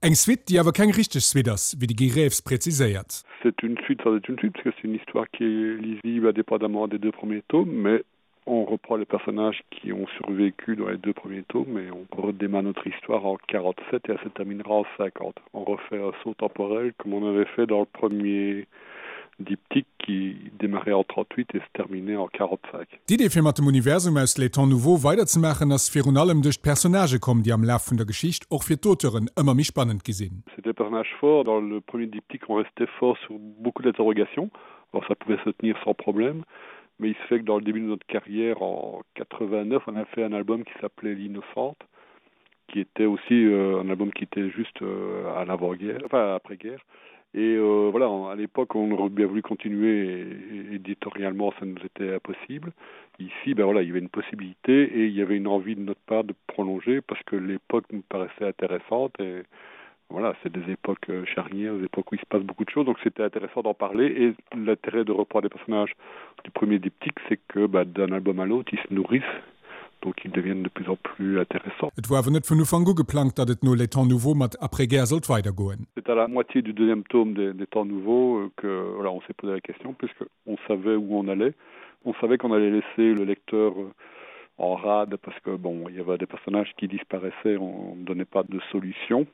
Eng Suite, déi awer keng richteg Suite ass, wéi de Guy Reeves präziséiert. C'est une suite sans être une suite, parce que c'est une histoire qui est lisible indépendamment des deux premiers tomes, mais on reprend les personnages qui ont survécu dans les deux premiers tomes et on redémarre notre histoire en 47 et elle se terminera en 50. On refait un saut temporel comme on avait fait dans le premier diptyque qui démarrait en 38 et se terminait en 45. D'Idee fir mat dem Universum aus Les Temps Nouveaux weiderzemaachen ass virun allem duerch d'Personnagë komm, déi am Laf vun der Geschicht och fir d'Auteuren ëmmer méi spannend gi sinn. C'était des personnages forts, dans le premier diptyque on restait fort sur beaucoup d'interrogations, alors ça pouvait se tenir sans problème, mais il se fait que dans le début de notre carrière en 89 on a fait un album qui s'appelait l'innocente qui était aussi euh, un album qui était juste euh, à l'avant-guerre enfin après-guerre et euh, voilà à l'époque on aurait bien voulu continuer et, et éditorialement ça nous était impossible ici ben voilà il y avait une possibilité et il y avait une envie de notre part de prolonger parce que l'époque nous paraissait intéressante et voilà c'est des époques euh, charnières des époques où il se passe beaucoup de choses donc c'était intéressant d'en parler et l'intérêt de reprendre des personnages du premier diptyque c'est que d'un album à l'autre ils se nourrissent donc ils deviennent de plus en plus intéressants. Et war awer net vun Ufank u geplangt, datt et no Les Temps Nouveaux mat Après-guerre sollt weidergoen. C'est à la moitié du deuxième tome des, des Temps Nouveaux euh, que voilà, on s'est posé la question puisque on savait où on allait. On savait qu'on allait laisser le lecteur euh, en rade parce que bon, il y avait des personnages qui disparaissaient, on ne donnait pas de solution.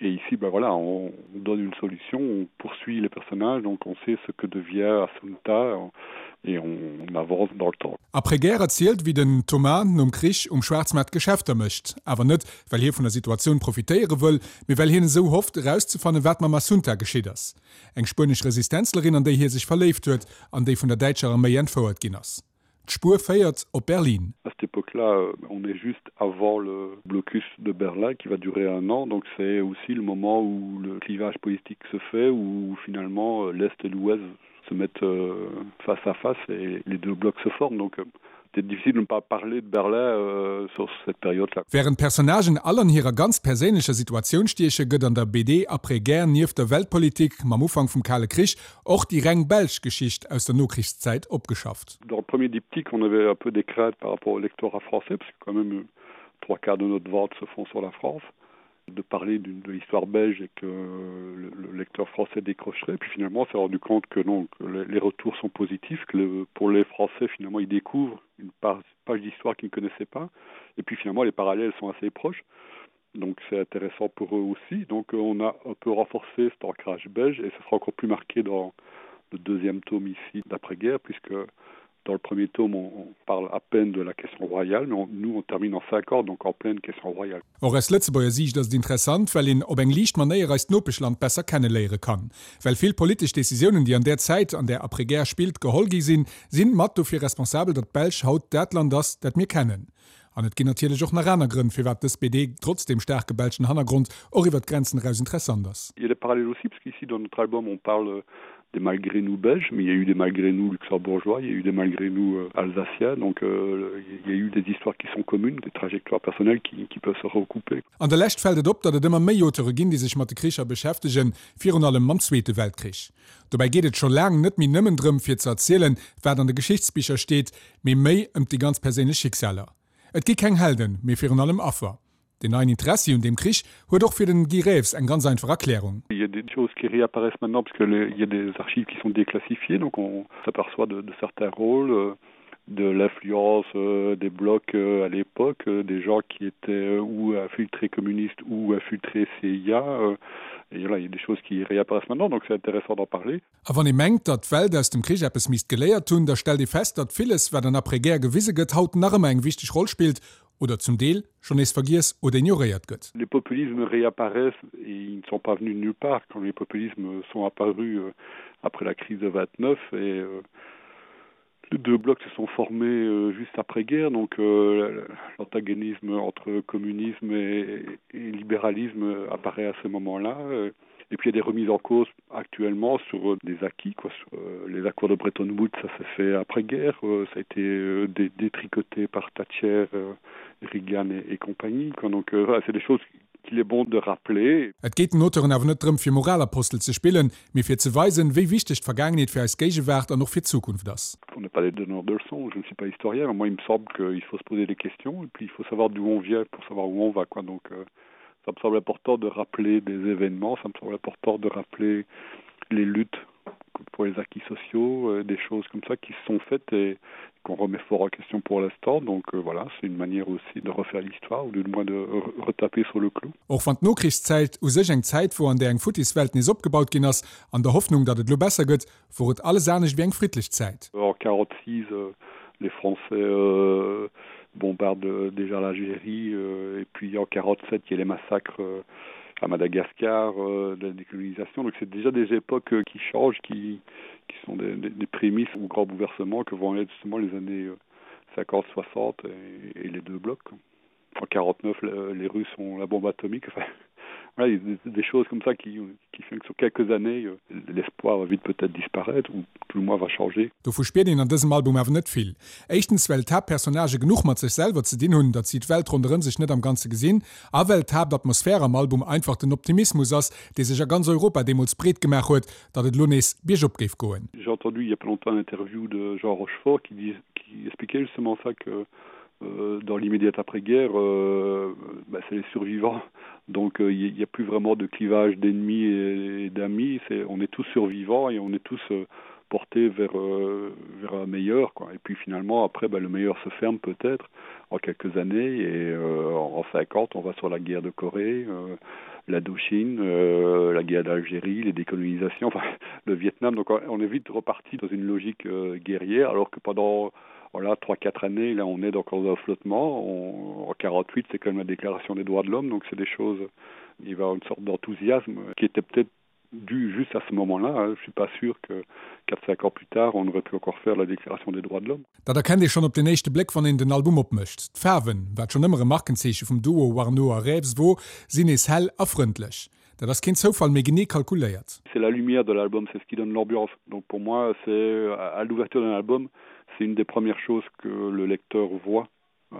Et ici ben voilà, on donne une solution, on poursuit les personnages, donc on sait ce que devient Assunta et on avance dans le temps. Après-guerre erzielt, wéi den Thomas nom Krich um Schwaarzmaart Geschäfter mécht. Awer net, well hie vun der Situatioun profitéiere wëll, mee well hien esou hofft, erauszefannen, wat mam Assunta geschitt ass, eng spuenesch Resistenzlerin, an déi hie sech verléift huet an déi vun der däitscher Arméi entfouert ginn ass. D'Spuer féiert op Berlin. À cette époque-là, euh, on est juste avant le blocus de Berlin qui va durer un an, donc c'est aussi le moment où le clivage politique se fait, où finalement euh, l'Est et l'Ouest se mettent euh, face à face et les deux blocs se forment. Donc c'était difficile de ne pas parler de Berlin euh, sur cette période-là. Wärend d'Personnagen all an hirer ganz perséinlecher Situatioun stieche, gëtt an der BD Après-guerre nieft der Weltpolitik mam Ufank vum Kale Krich och déi reng belsch Geschicht aus der Nokrichszäit opgeschafft. Dans le premier diptyque, on avait un peu des craintes par rapport au lectorat français, parce que quand même euh, trois quarts de notre vente se font sur la France de parler de l'histoire belge et que le, le lecteur français décrocherait. Puis finalement, on s'est rendu compte que non, que les retours sont positifs, que le, pour les Français, finalement, ils découvrent une page d'histoire qu'ils ne connaissaient pas. Et puis finalement, les parallèles sont assez proches. Donc c'est intéressant pour eux aussi. Donc euh, on a un peu renforcé cet ancrage belge et ce sera encore plus marqué dans le deuxième tome ici d'après-guerre, puisque dans le premier tome on, on parle à peine de la question royale, mais on, nous on termine en 5 ans, donc en pleine question royale. Och aus Lëtzebuerger Siicht ass et interessant, well een op eng liicht Manéier eist Nopeschland besser kenneléiere kann. Well vill politesch Decisiounen, déi an där Zäit, an där Après-guerre spillt, geholl gi sinn, sinn mat dofir responsabel, datt d'Belsch haut dat Land ass, dat mir kennen. An et ginn natierlech och nach aner Grënn, firwat dës BD, trotz dem staarke belschen Hannergrond, och iwwer d'Grenzen eraus interessant ass. Il y a des parallèles aussi, parce qu'ici dans notre album on parle des malgré nous belges, mais il y a eu des malgré nous luxembourgeois, il y a eu des malgré nous euh, alsaciens, donc euh, il y a eu des histoires qui sont communes, des trajectoires personnelles qui, qui peuvent se recouper. An der Lescht fält et op, datt et ëmmer méi Auteure ginn, déi sech mat de Kricher beschäftegen, virun allem mam Zweete Weltkrich. Dobäi geet et scho laang net méi nëmmen drëm, fir ze erzielen, wat an de Geschichtsbicher steet, mee méi ëm déi ganz perséinlech Schicksaler. Et gi keng Helden, mee virun allem Affer. Den neien Interessi un deem Krich huet och fir den Guy Reeves eng ganz einfach Erklärung. Il y a des choses qui réapparaissent maintenant parce que les, il y a des archives qui sont déclassifiées, donc on s'aperçoit de, de certains rôles euh, de l'influence euh, des blocs euh, à l'époque, euh, des gens qui étaient euh, ou infiltrés communistes ou infiltrés CIA. Euh, et là, il y a des choses qui réapparaissent maintenant, donc c'est intéressant d'en parler. A wann ee mengt, datt d'Welt aus dem Krich eppes misst geléiert hunn, da stellt ee fest, datt villes, wat an Après-guerre gewise gëtt, haut nach ëmmer eng wichteg Roll spillt oder zum Deel schonn nees vergiess oder ignoréiert gëtt. Les populismes réapparaissent et ils ne sont pas venus de nulle part quand les populismes sont apparus euh, après la crise de 29 et euh, les deux blocs se sont formés euh, juste après guerre donc euh, l'antagonisme entre communisme et, et libéralisme apparaît à ce moment là euh, et puis il y a des remises en cause actuellement sur euh, des acquis quoi sur euh, les accords de Bretton Woods ça s'est fait après guerre euh, ça a été euh, dé détricoté par Thatcher euh, Reagan et, et compagnie quoi donc euh, voilà, c'est des choses qu'il est bon de rappeler. Et geet den Auteuren awer net drëm fir Moralapostel ze spillen, mee fir ze weisen, wéi wichteg d'Vergaangenheet fir eis Géigewaart an och fir d'Zukunft ass. On n'est pas des donneurs de leçons, je ne suis pas historien, moi il me semble qu'il faut se poser des questions et puis il faut savoir d'où on vient pour savoir où on va quoi donc euh, Ça me semble important de rappeler des événements, ça me semble important de rappeler les luttes pour les acquis sociaux, euh, des choses comme ça qui sont faites et qu'on remet fort en question pour l'instant. Donc euh, voilà, c'est une manière aussi de refaire l'histoire ou du moins de retaper sur le clou. Och wann d'Nokrichszäit u sech eng Zäit wor, an där eng futtis Welt nees opgebaut ginn ass, an der Hoffnung, datt et lo besser gëtt, wor et alles anescht wéi eng friddlech Zäit. En 46 euh, les Français euh, bombardent euh, déjà l'Algérie euh, et puis en 47 il y a les massacres euh, à Madagascar euh, de la décolonisation. Donc c'est déjà des époques euh, qui changent, qui, qui sont des, des, des prémices ou grands bouleversements que vont être justement les années 50, euh, 60 et, et les deux blocs. En 49 les Russes ont la bombe atomique. Enfin, voilà, il y a des, des choses comme ça qui, qui font que sur quelques années euh, l'espoir va vite peut-être disparaître ou tout le moins va changer. Dovu spiert een an dësem Album awer net vill. Éischtens well d'Haaptpersonnagë genuch mat sech selwer ze dinn hunn, datt si d'Welt ronderëm sech net am Ganze gesinn, a well d'Haaptatmosphär am Album einfach den Optimismus ass, dee sech a ganz Europa deemools breet gemaach huet, datt et elo nees biergop géif goen. J'ai entendu il y a pas longtemps un interview de Jean Rochefort qui dis qui expliquait justement ça que euh, dans l'immédiate après-guerre euh, bah, c'est les survivants donc euh, il euh, n'y a plus vraiment de clivage d'ennemis et, et d'amis c'est on est tous survivants et on est tous euh, portés vers euh, vers un meilleur quoi et puis finalement après bah, le meilleur se ferme peut-être en quelques années et euh, en 50 on va sur la guerre de Corée euh, l'Indochine euh, la guerre d'Algérie les décolonisations enfin le Vietnam donc on est vite reparti dans une logique euh, guerrière alors que pendant voilà trois quatre années là on est encore dans un flottement on, en 48 c'est quand même la déclaration des droits de l'homme donc c'est des choses il va une sorte d'enthousiasme qui était peut-être dû juste à ce moment là hein. je suis pas sûr que 4 5 ans plus tard on aurait pu encore faire la déclaration des droits de l'homme. Dat erkennt ee schonn op den éischte Bléck wann een den Album opmécht. D'Faarwen, wat schonn ëmmer e Markenzeeche vum Duo Warnaud a Reeves wor, sinn nees hell a frëndlech. Dat ass keen Zoufall, mee genee kalkuléiert. C'est la lumière de l'album, c'est ce qui donne l'ambiance. Donc pour moi, c'est à l'ouverture d'un album, c'est une des premières choses que le lecteur voit.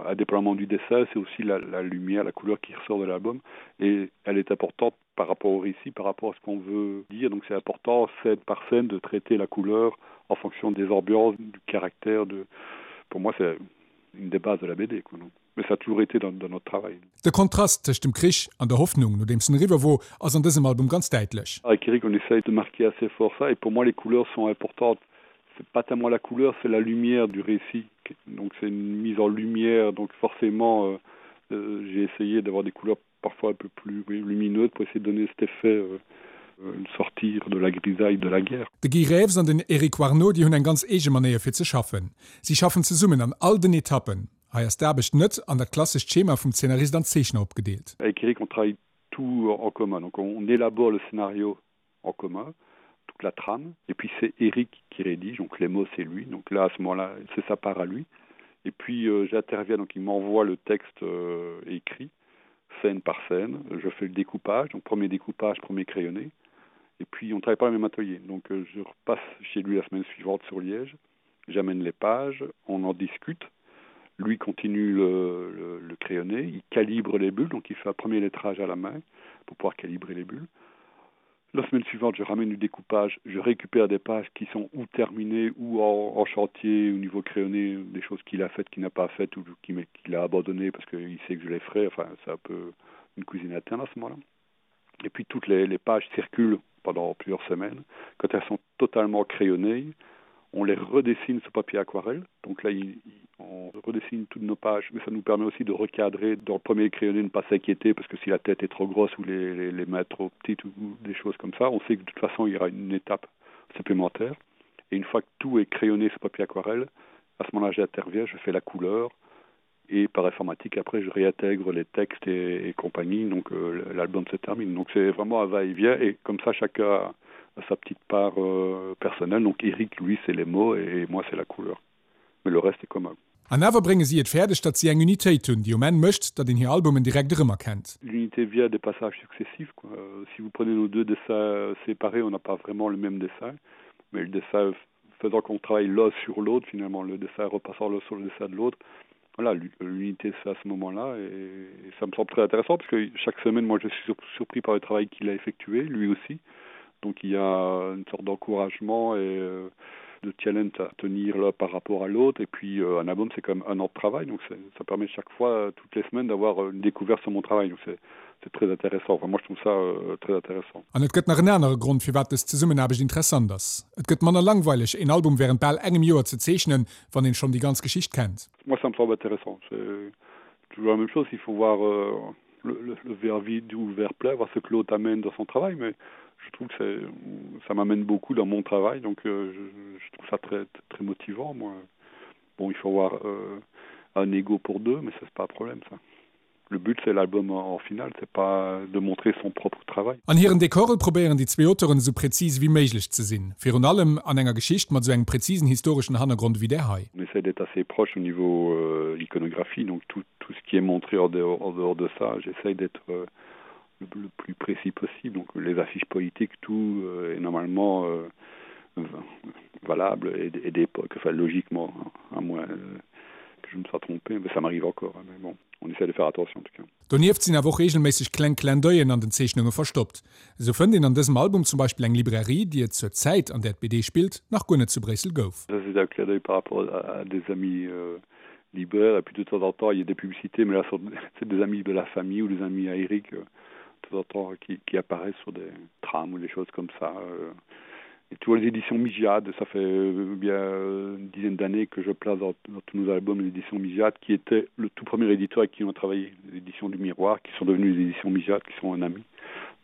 Indépendamment du dessin, c'est aussi la, la lumière, la couleur qui ressort de l'album et elle est importante par rapport au récit, par rapport à ce qu'on veut dire. Donc c'est important scène par scène de traiter la couleur en fonction des ambiances, du caractère de pour moi c'est une des bases de la BD quoi, donc. Mais ça a toujours été dans, dans notre travail. De Kontrast tëscht dem Krich an der Hoffnung, nodeems en eriwwer wor, ass an dësem Album ganz däitlech. Avec Eric, on essaye de marquer assez fort ça et pour moi les couleurs sont importantes. C'est pas tellement la couleur, c'est la lumière du récit. Donc c'est une mise en lumière, donc forcément euh, euh, j'ai essayé d'avoir des couleurs parfois un peu plus oui, lumineuses pour essayer de donner cet effet euh, euh, sortir de la grisaille de la guerre. De Guy Reeves an den Eric Warnaud, déi hunn eng ganz eege Manéier fir ze schaffen. Si schaffen zesummen an all den Etappen. Hei ass d'Aarbecht net an dat klassescht Schema vum Zeenarist an Zeechner opgedeelt. Avec Eric on travaille tout en commun. Donc on élabore le scénario en commun, toute la trame et puis c'est Eric qui rédige, donc les mots c'est lui. Donc là à ce moment-là, c'est sa part à lui. Et puis euh, j'interviens, donc il m'envoie le texte euh, écrit scène par scène. Je fais le découpage, donc premier découpage, premier crayonné. Et puis on travaille pas le même atelier. Donc euh, je repasse chez lui la semaine suivante sur Liège. J'amène les pages, on en discute. Lui continue le, le, le crayonné, il calibre les bulles, donc il fait un premier lettrage à la main pour pouvoir calibrer les bulles. La semaine suivante, je ramène du découpage, je récupère des pages qui sont ou terminées ou en, en chantier au niveau crayonné, des choses qu'il a faites, qu'il n'a pas faites ou qu'il qu a abandonné parce qu'il sait que je les ferai. Enfin, c'est un peu une cuisine interne à ce moment-là. Et puis toutes les, les pages circulent pendant plusieurs semaines. Quand elles sont totalement crayonnées, on les redessine sur papier aquarelle. Donc là, il, on redessine toutes nos pages, mais ça nous permet aussi de recadrer dans le premier crayonné, ne pas s'inquiéter parce que si la tête est trop grosse ou les, les, les mains trop petites ou des choses comme ça, on sait que de toute façon il y aura une étape supplémentaire. Et une fois que tout est crayonné sur papier aquarelle, à ce moment-là j'interviens, je fais la couleur et par informatique après je réintègre les textes et, et compagnie donc euh, l'album se termine donc c'est vraiment un va-et-vient et comme ça chacun a, a sa petite part euh, personnelle donc Eric lui c'est les mots et moi c'est la couleur mais le reste est commun. An awer brénge si et fäerdeg, datt si eng Unitéit hunn, déi um Enn mécht, datt een hir Albumen direkt erëmerkennt. L'unité vient des passages successifs quoi. Si vous prenez nos deux dessins séparés, on n'a pas vraiment le même dessin, mais le dessin faisant qu'on travaille l'un sur l'autre finalement, le dessin repassant l'un sur le dessin de l'autre. Voilà, l'unité c'est à ce moment-là et, et ça me semble très intéressant parce que chaque semaine moi je suis sur, surpris par le travail qu'il a effectué, lui aussi. Donc il y a une sorte d'encouragement et euh, de challenge à tenir là par rapport à l'autre et puis euh, un album c'est quand même un an de travail donc ça permet chaque fois toutes les semaines d'avoir une découverte sur mon travail donc c'est. C'est très intéressant. Enfin, moi je trouve ça euh, très intéressant. An et gëtt nach en anere Grond, firwat dës Zesummenaarbecht interessant ass, Et gëtt manner langweileg, een Album wärend bal engem Joer ze zeechnen, wann een schonn déi ganz Geschicht kennt. Moi ça me semble intéressant. C'est toujours la même chose, il faut voir euh, le, le, le verre vide ou le verre plein, voir ce que l'autre amène dans son travail, mais je trouve que ça m'amène beaucoup dans mon travail, donc euh, je, je trouve ça très, très motivant moi. Bon, il faut avoir euh, un ego pour deux, mais ça c'est pas un problème ça. Le but c'est l'album en finale, c'est pas de montrer son propre travail. An hiren Dekore probéieren déi zwee Auteuren esou präzis ewéi méiglech ze sinn, virun allem an enger Geschicht mat esou engem präzisen historeschen Hannergrond ewéi där hei. On essaie d'être assez proche au niveau euh, iconographie, donc tout, tout ce qui est montré en dehors, en dehors de ça, j'essaye d'être euh, le, le plus précis possible. Donc les affiches politiques, tout euh, est normalement euh, valable et, et d'époque, enfin logiquement, à moins euh, que je me sois trompé, mais ça m'arrive encore, hein, mais bon on essaie de faire attention en tout cas. Donieft sinn awer och reegelméisseg kleng Clin-d'oeillen an den Zeechnunge verstoppt. Esou fënnt een an dësem Album zum Beispill eng Librairie, déi et zur Zäit, an där d'BD spillt, nach guer net zu Bréissel gouf. Ça c'est un clin d'oeil par rapport à des amis euh, libraires et puis de temps en temps il y a des publicités mais là c'est des amis de la famille ou des amis à Eric euh, de temps en temps qui, qui apparaissent sur des trams ou des choses comme ça. Euh, Et tu vois les éditions Migiad, ça fait euh, bien euh, une dizaine d'années que je place dans, dans tous nos albums l'édition Migiad qui était le tout premier éditeur avec qui on a travaillé, l'édition du miroir qui sont devenues les éditions Migiad qui sont un ami.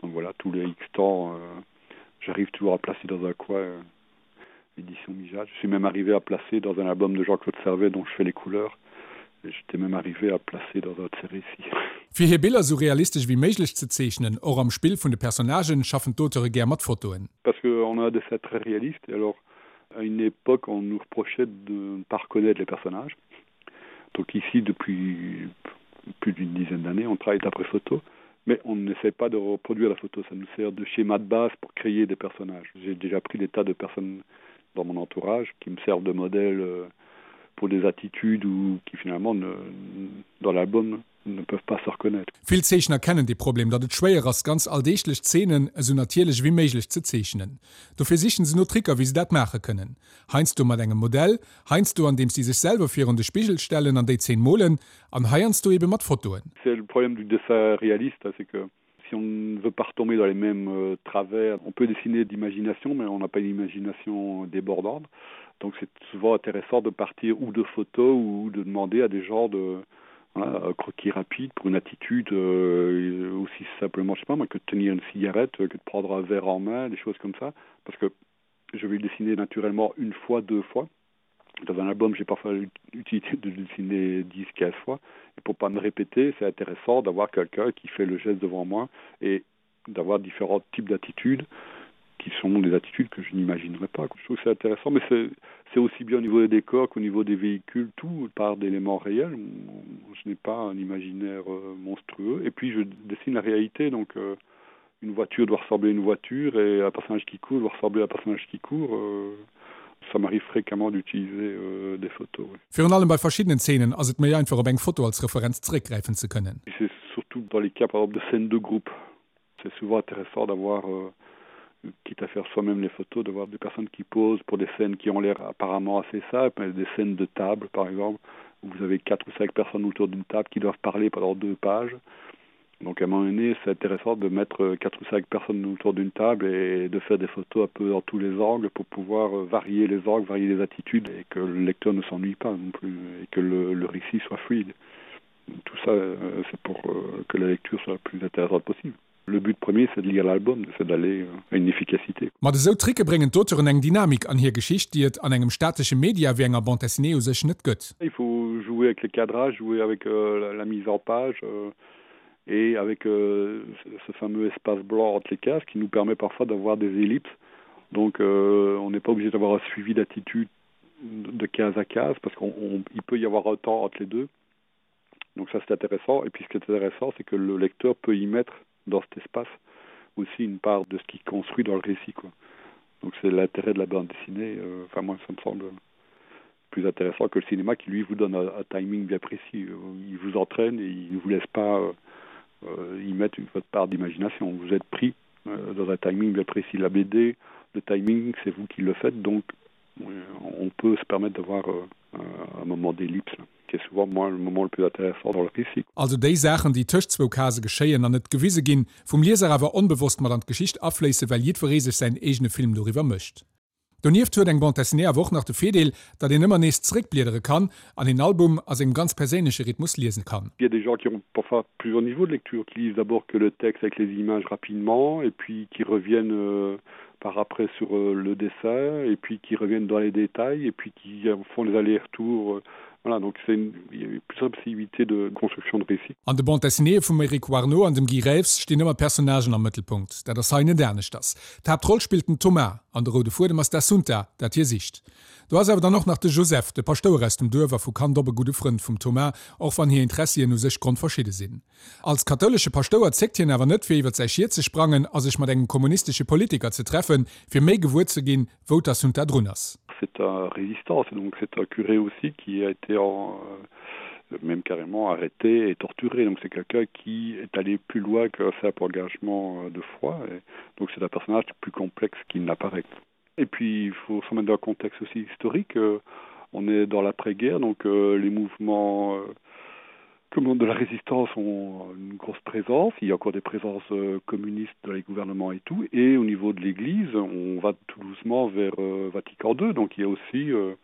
Donc voilà tous les X temps euh, j'arrive toujours à placer dans un coin euh, édition Migiad. Je suis même arrivé à placer dans un album de Jean-Claude Servet dont je fais les couleurs. J'étais même arrivé à placer dans un série ici. Fir hir Biller esou realistesch ewéi méiglech ze zeechnen, och am Spill vun de Personnagen, schaffen d'Auteure gär mat Fotoen. Parce que on a un dessin très réaliste et alors à une époque on nous reprochait de ne pas reconnaître les personnages. Donc ici depuis plus d'une dizaine d'années on travaille d'après photo mais on n'essaie pas de reproduire la photo, ça nous sert de schéma de base pour créer des personnages. J'ai déjà pris des tas de personnes dans mon entourage qui me servent de modèle euh, pour des attitudes ou qui finalement ne, dans l'album ne peuvent pas se reconnaître. Vill Zeechner kennen dee Problem, datt et schwéier ass, ganz alldeeglech Zeenen esou natierlech ewéi méiglech ze zeechnen. Dofir sichen se no Tricker, wéi se dat maache kënnen. Heiansdo mat engem Modell, heiansdo andeems si sech selwer virun de Spigel stellen an déi Zeen molen, an heiansdo ebe mat Fotoen. C'est le problème du dessin réaliste, c'est que si on ne veut pas retomber dans les mêmes euh, travers, on peut dessiner d'imagination, mais on n'a pas une imagination débordante. Donc c'est souvent intéressant de partir ou de photos ou de demander à des gens de voilà, un croquis rapide pour une attitude euh, aussi simplement je sais pas moi que de tenir une cigarette, que de prendre un verre en main, des choses comme ça parce que je vais le dessiner naturellement une fois, deux fois. Dans un album, j'ai parfois l'utilité de le dessiner 10, 15 fois. Et pour pas me répéter, c'est intéressant d'avoir quelqu'un qui fait le geste devant moi et d'avoir différents types d'attitudes qui sont des attitudes que je n'imaginerais pas. Je trouve que c'est intéressant, mais c'est aussi bien au niveau des décors qu'au niveau des véhicules, tout part d'éléments réels. Je n'ai pas un imaginaire euh, monstrueux. Et puis je dessine la réalité, donc euh, une voiture doit ressembler à une voiture et un personnage qui court doit ressembler à un personnage qui court. Euh, ça m'arrive fréquemment d'utiliser euh, des photos. Oui. Virun allem bei verschiddenen Zeenen ass et méi einfach op eng Foto als Referenz zeréckgräifen ze kënnen. C'est surtout dans les cas par exemple de scènes de groupe. C'est souvent intéressant d'avoir euh, quitte à faire soi-même les photos, d'avoir des personnes qui posent pour des scènes qui ont l'air apparemment assez simples, des scènes de table par exemple, où vous avez quatre ou cinq personnes autour d'une table qui doivent parler pendant deux pages. Donc à un moment donné, c'est intéressant de mettre euh, quatre ou cinq personnes autour d'une table et de faire des photos un peu dans tous les angles pour pouvoir euh, varier les angles, varier les attitudes et que le lecteur ne s'ennuie pas non plus et que le, le récit soit fluide. Tout ça, euh, c'est pour que la lecture soit la plus intéressante possible. Le but premier, c'est de lire l'album, c'est d'aller à une efficacité. Mat esou Tricke bréngen d'Auteuren eng Dynamik an hir Geschicht, déi et an engem statesche Media wéi enger Bande dessinée u sech net gëtt. Il faut jouer avec les cadrages, jouer avec euh, la mise en page euh, et avec euh, ce fameux espace blanc entre les cases qui nous permet parfois d'avoir des ellipses. Donc euh, on n'est pas obligé d'avoir un suivi d'attitude de case à case parce qu'il peut y avoir un temps entre les deux. Donc ça c'est intéressant et puis ce qui est intéressant c'est que le lecteur peut y mettre dans cet espace aussi une part de ce qu'il construit dans le récit quoi. Donc c'est l'intérêt de la bande dessinée euh, enfin moi ça me semble plus intéressant que le cinéma qui lui vous donne un, un timing bien précis il vous entraîne et il ne vous laisse pas euh, euh y mettre une votre part d'imagination vous êtes pris euh, dans un timing bien précis la BD le timing c'est vous qui le faites donc on peut se permettre d'avoir euh, un moment d'ellipse. qui est souvent moi le moment le plus intéressant dans le récit. Also déi Saachen, déi tëscht zwou Casë geschéien an net gewise ginn, vum Lieser awer onbewosst mat an d'Geschicht afléisse well jiddweree sech säin eegene Film doriwwer mécht. Donieft huet eng Bande dessinée awer och nach de Virdeel, datt een ëmmer nees zeréckbliedere kann an een Album a sengem ganz perséinleche Rhythmus liese kann. Il y a des gens qui ont parfois plusieurs niveaux de lecture, qui lisent d'abord que le texte avec les images rapidement et puis qui reviennent euh, par après sur euh, le dessin et puis qui reviennent dans les détails et puis qui font les allers-retours. Euh, voilà, donc c'est une, il y a plusieurs possibilités de construction de récit. An de Bande dessinéeë vum Eric Warneau an dem Guy Reeves stinn ëmmer Personnagen am Mëttelpunkt. Dat ass hei net aneschters. D'Haaptroll spillt den Thomas an de roude Fuedem ass d'Assunta, dat hie sicht. Do ass awer dann och nach de Joseph, de Paschtouer aus dem Duerf a vu Kand op e gudde Frënd vum Thomas, och wann hir Intressien u sech grondverschidde sinn. Als kathoulesche Paschtouer zéckt hien awer net, fir iwwer säi Schiet ze sprangen a sech mat engem kommunistesche Politiker ze treffen, fir méi gewuer ze ginn, wou d'Assunta drun ass. C'est un résistant, c'est donc c'est un curé aussi qui a été en même carrément arrêté et torturé. Donc c'est quelqu'un qui est allé plus loin qu'un simple engagement euh, de foi. Et donc c'est un personnage plus complexe qu'il n'apparaît. Et puis il faut se mettre dans un contexte aussi historique. Euh, on est dans l'après-guerre, donc euh, les mouvements euh, comment de la résistance ont une grosse présence. Il y a encore des présences euh, communistes dans les gouvernements et tout. Et au niveau de l'Église, on va tout doucement vers euh, Vatican II. Donc il y a aussi euh,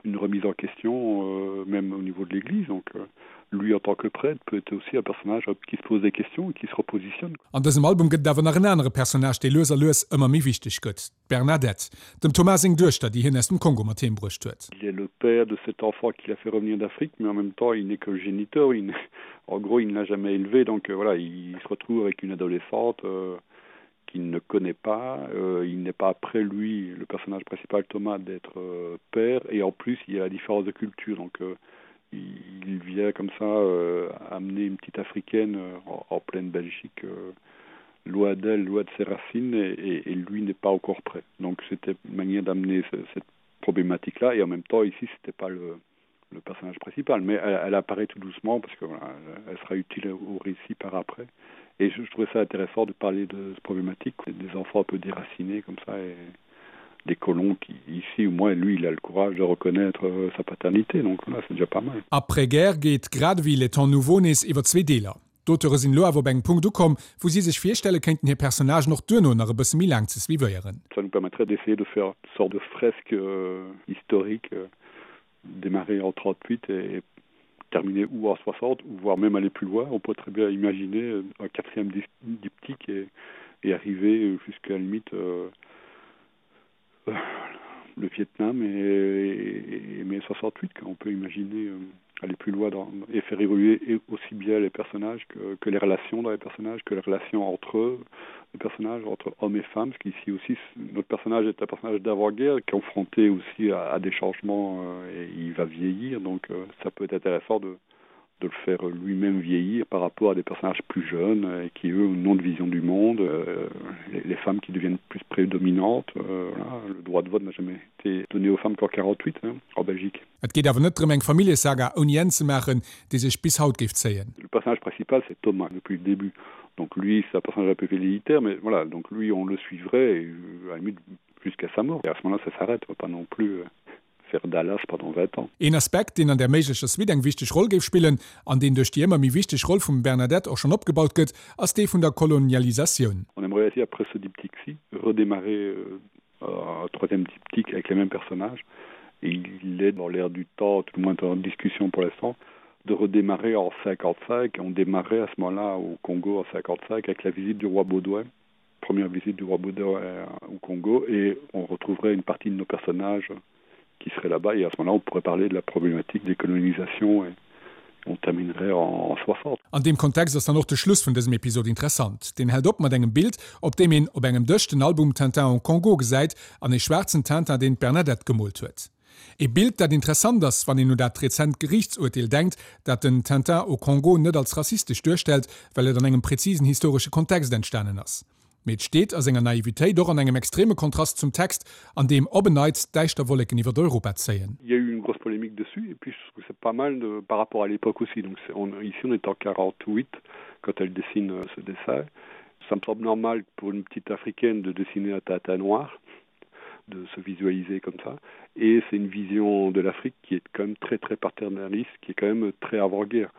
une remise en question euh, même au niveau de l'Église. Donc euh, lui en tant que prêtre peut être aussi un personnage qui se pose des questions et qui se repositionne. An dësem Album gëtt et awer nach en anere Personnage, dee lues a lues ëmmer méi wichteg gëtt, d'Bernadette, dem Thomas seng Duechter, déi hien aus dem Kongo mat heem bruecht huet. Il est le père de cet enfant qu'il a fait revenir d'Afrique, mais en même temps il n'est que géniteur, il en gros il ne l'a jamais élevé, donc euh, voilà, il se retrouve avec une adolescente euh, qu'il ne connaît pas, euh, il n'est pas après lui, le personnage principal Thomas, d'être euh, père, et en plus il y a la différence de culture, donc euh, il vient comme ça euh, amener une petite africaine euh, en, en pleine Belgique euh, loin d'elle, loin de ses racines et, et, et lui n'est pas encore prêt. Donc c'était une manière d'amener ce, cette problématique là et en même temps ici c'était pas le, le personnage principal mais elle, elle apparaît tout doucement parce que voilà, elle sera utile au récit par après et je, je trouvais ça intéressant de parler de cette problématique des enfants un peu déracinés comme ça et des colons qui ici au moins lui il a le courage de reconnaître euh, sa paternité donc voilà, c'est déjà pas mal. Après-guerre geet grad ewéi Les Temps nouveaux nees iwwer zwee Deeler. D'Auteure sinn elo awer op engem Punkt ukomm, wou si sech virstelle kéinten hir Personnagen och duerno nach e bësse méi laang ze suivéieren. Ça nous permettrait d'essayer de faire une sorte de fresque euh, historique euh, démarrer en 38 et terminer ou en 60 ou voire même aller plus loin. On peut très bien imaginer euh, un quatrième diptyque et, et arriver jusqu'à la limite euh, euh, le Vietnam et, et, et mai 68 on peut imaginer euh, aller plus loin dans, et faire évoluer et aussi bien les personnages que, que les relations dans les personnages que les relations entre eux les personnages entre hommes et femmes ce qui ici aussi notre personnage est un personnage d'avant-guerre confronté aussi à, à des changements euh, et il va vieillir donc euh, ça peut être intéressant de de le faire lui-même vieillir par rapport à des personnages plus jeunes et qui eux ont une vision du monde euh, les, les femmes qui deviennent plus prédominantes euh, voilà, le droit de vote n'a jamais été donné aux femmes qu'en 48 hein, en Belgique. Et geet awer net drëm eng Familljesaga ouni Enn ze maachen, déi sech bis haut géif zéien. Le personnage principal c'est Thomas depuis le début. Donc lui c'est un personnage un peu velléitaire mais voilà donc lui on le suivrait et, euh, à la limite jusqu'à sa mort et à ce moment là ça s'arrête pas non plus euh, faire Dallas pendant 20 ans. Een Aspekt, deen an där méiglecher Suite eng wichteg Roll géif spillen, an deen duerch déi ëmmer méi wichteg Roll vum Bernadette och schonn opgebaut gëtt, ass dee vun der Kolonialisatioun. On aimerait aussi après ce diptyque-ci redémarrer euh, un troisième diptyque avec les mêmes personnages et il est dans l'air du temps, tout le moins en discussion pour l'instant, de redémarrer en 55 et on démarrait à ce moment-là au Congo en 55 avec la visite du roi Baudouin première visite du roi Baudouin euh, au Congo et on retrouverait une partie de nos personnages qui seraient là-bas et à ce moment-là on pourrait parler de la problématique des colonisations et on terminerait en, en 60. An deem Kontext ass dann och de Schluss vun dësem Episod interessant. Deen hält op mat engem Bild, op deem een op engem Dësch den Album Tintin au Congo gesäit an ee schwaarzen Tintin, deen d'Bernadette gemoolt huet. Ee Bild, dat interessant ass, wann een un dat rezent Geriichtsurteel denkt, dat den Tintin au Congo net als rassistesch duerstellt, well et an engem präzisen historesche Kontext entstanen ass. Mee et steet a senger Naivitéit och an engem extreme Kontrast zum Text, an deem op en Neits däischter Wolleken iwwer Europa zéien. Il y a eu une grosse polémique dessus et puis je trouve c'est pas mal de, par rapport à l'époque aussi. Donc on, ici on est en 48 quand elle dessine euh, ce dessin. Ça me semble normal pour une petite africaine de dessiner un tata noir. de se visualiser comme ça. Et c'est une vision de l'Afrique qui est quand même très très paternaliste, qui est quand même très avant-guerre.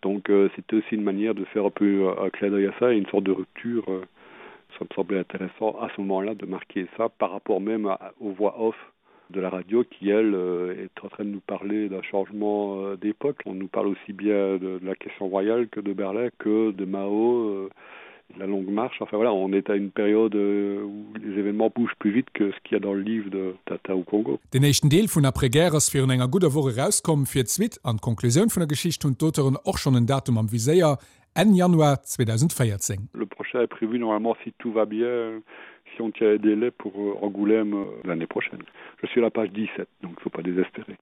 Donc euh, c'était aussi une manière de faire un peu un clin d'œil à ça et une sorte de rupture. Euh, ça me semblait intéressant à ce moment-là de marquer ça par rapport même à, aux voix off de la radio qui elle euh, est en train de nous parler d'un changement euh, d'époque. On nous parle aussi bien de, de la question royale que de Berlin que de Mao euh, la longue marche. Enfin voilà, on est à une période euh, où les événements bougent plus vite que ce qu'il y a dans le livre de Tata au Congo. Den éischten Deel vun Après-guerre ass virun enger gudder Woch erauskomm. Fir d'Suite an d'Konklusioun vun der Geschicht hunn d'Auteuren och schonn en Datum am Viséier, Enn Januar 2014. Le prochain est prévu normalement si tout va bien, si on tient les délais pour euh, Angoulême euh, l'année prochaine. Je suis à la page 17, donc il faut pas désespérer.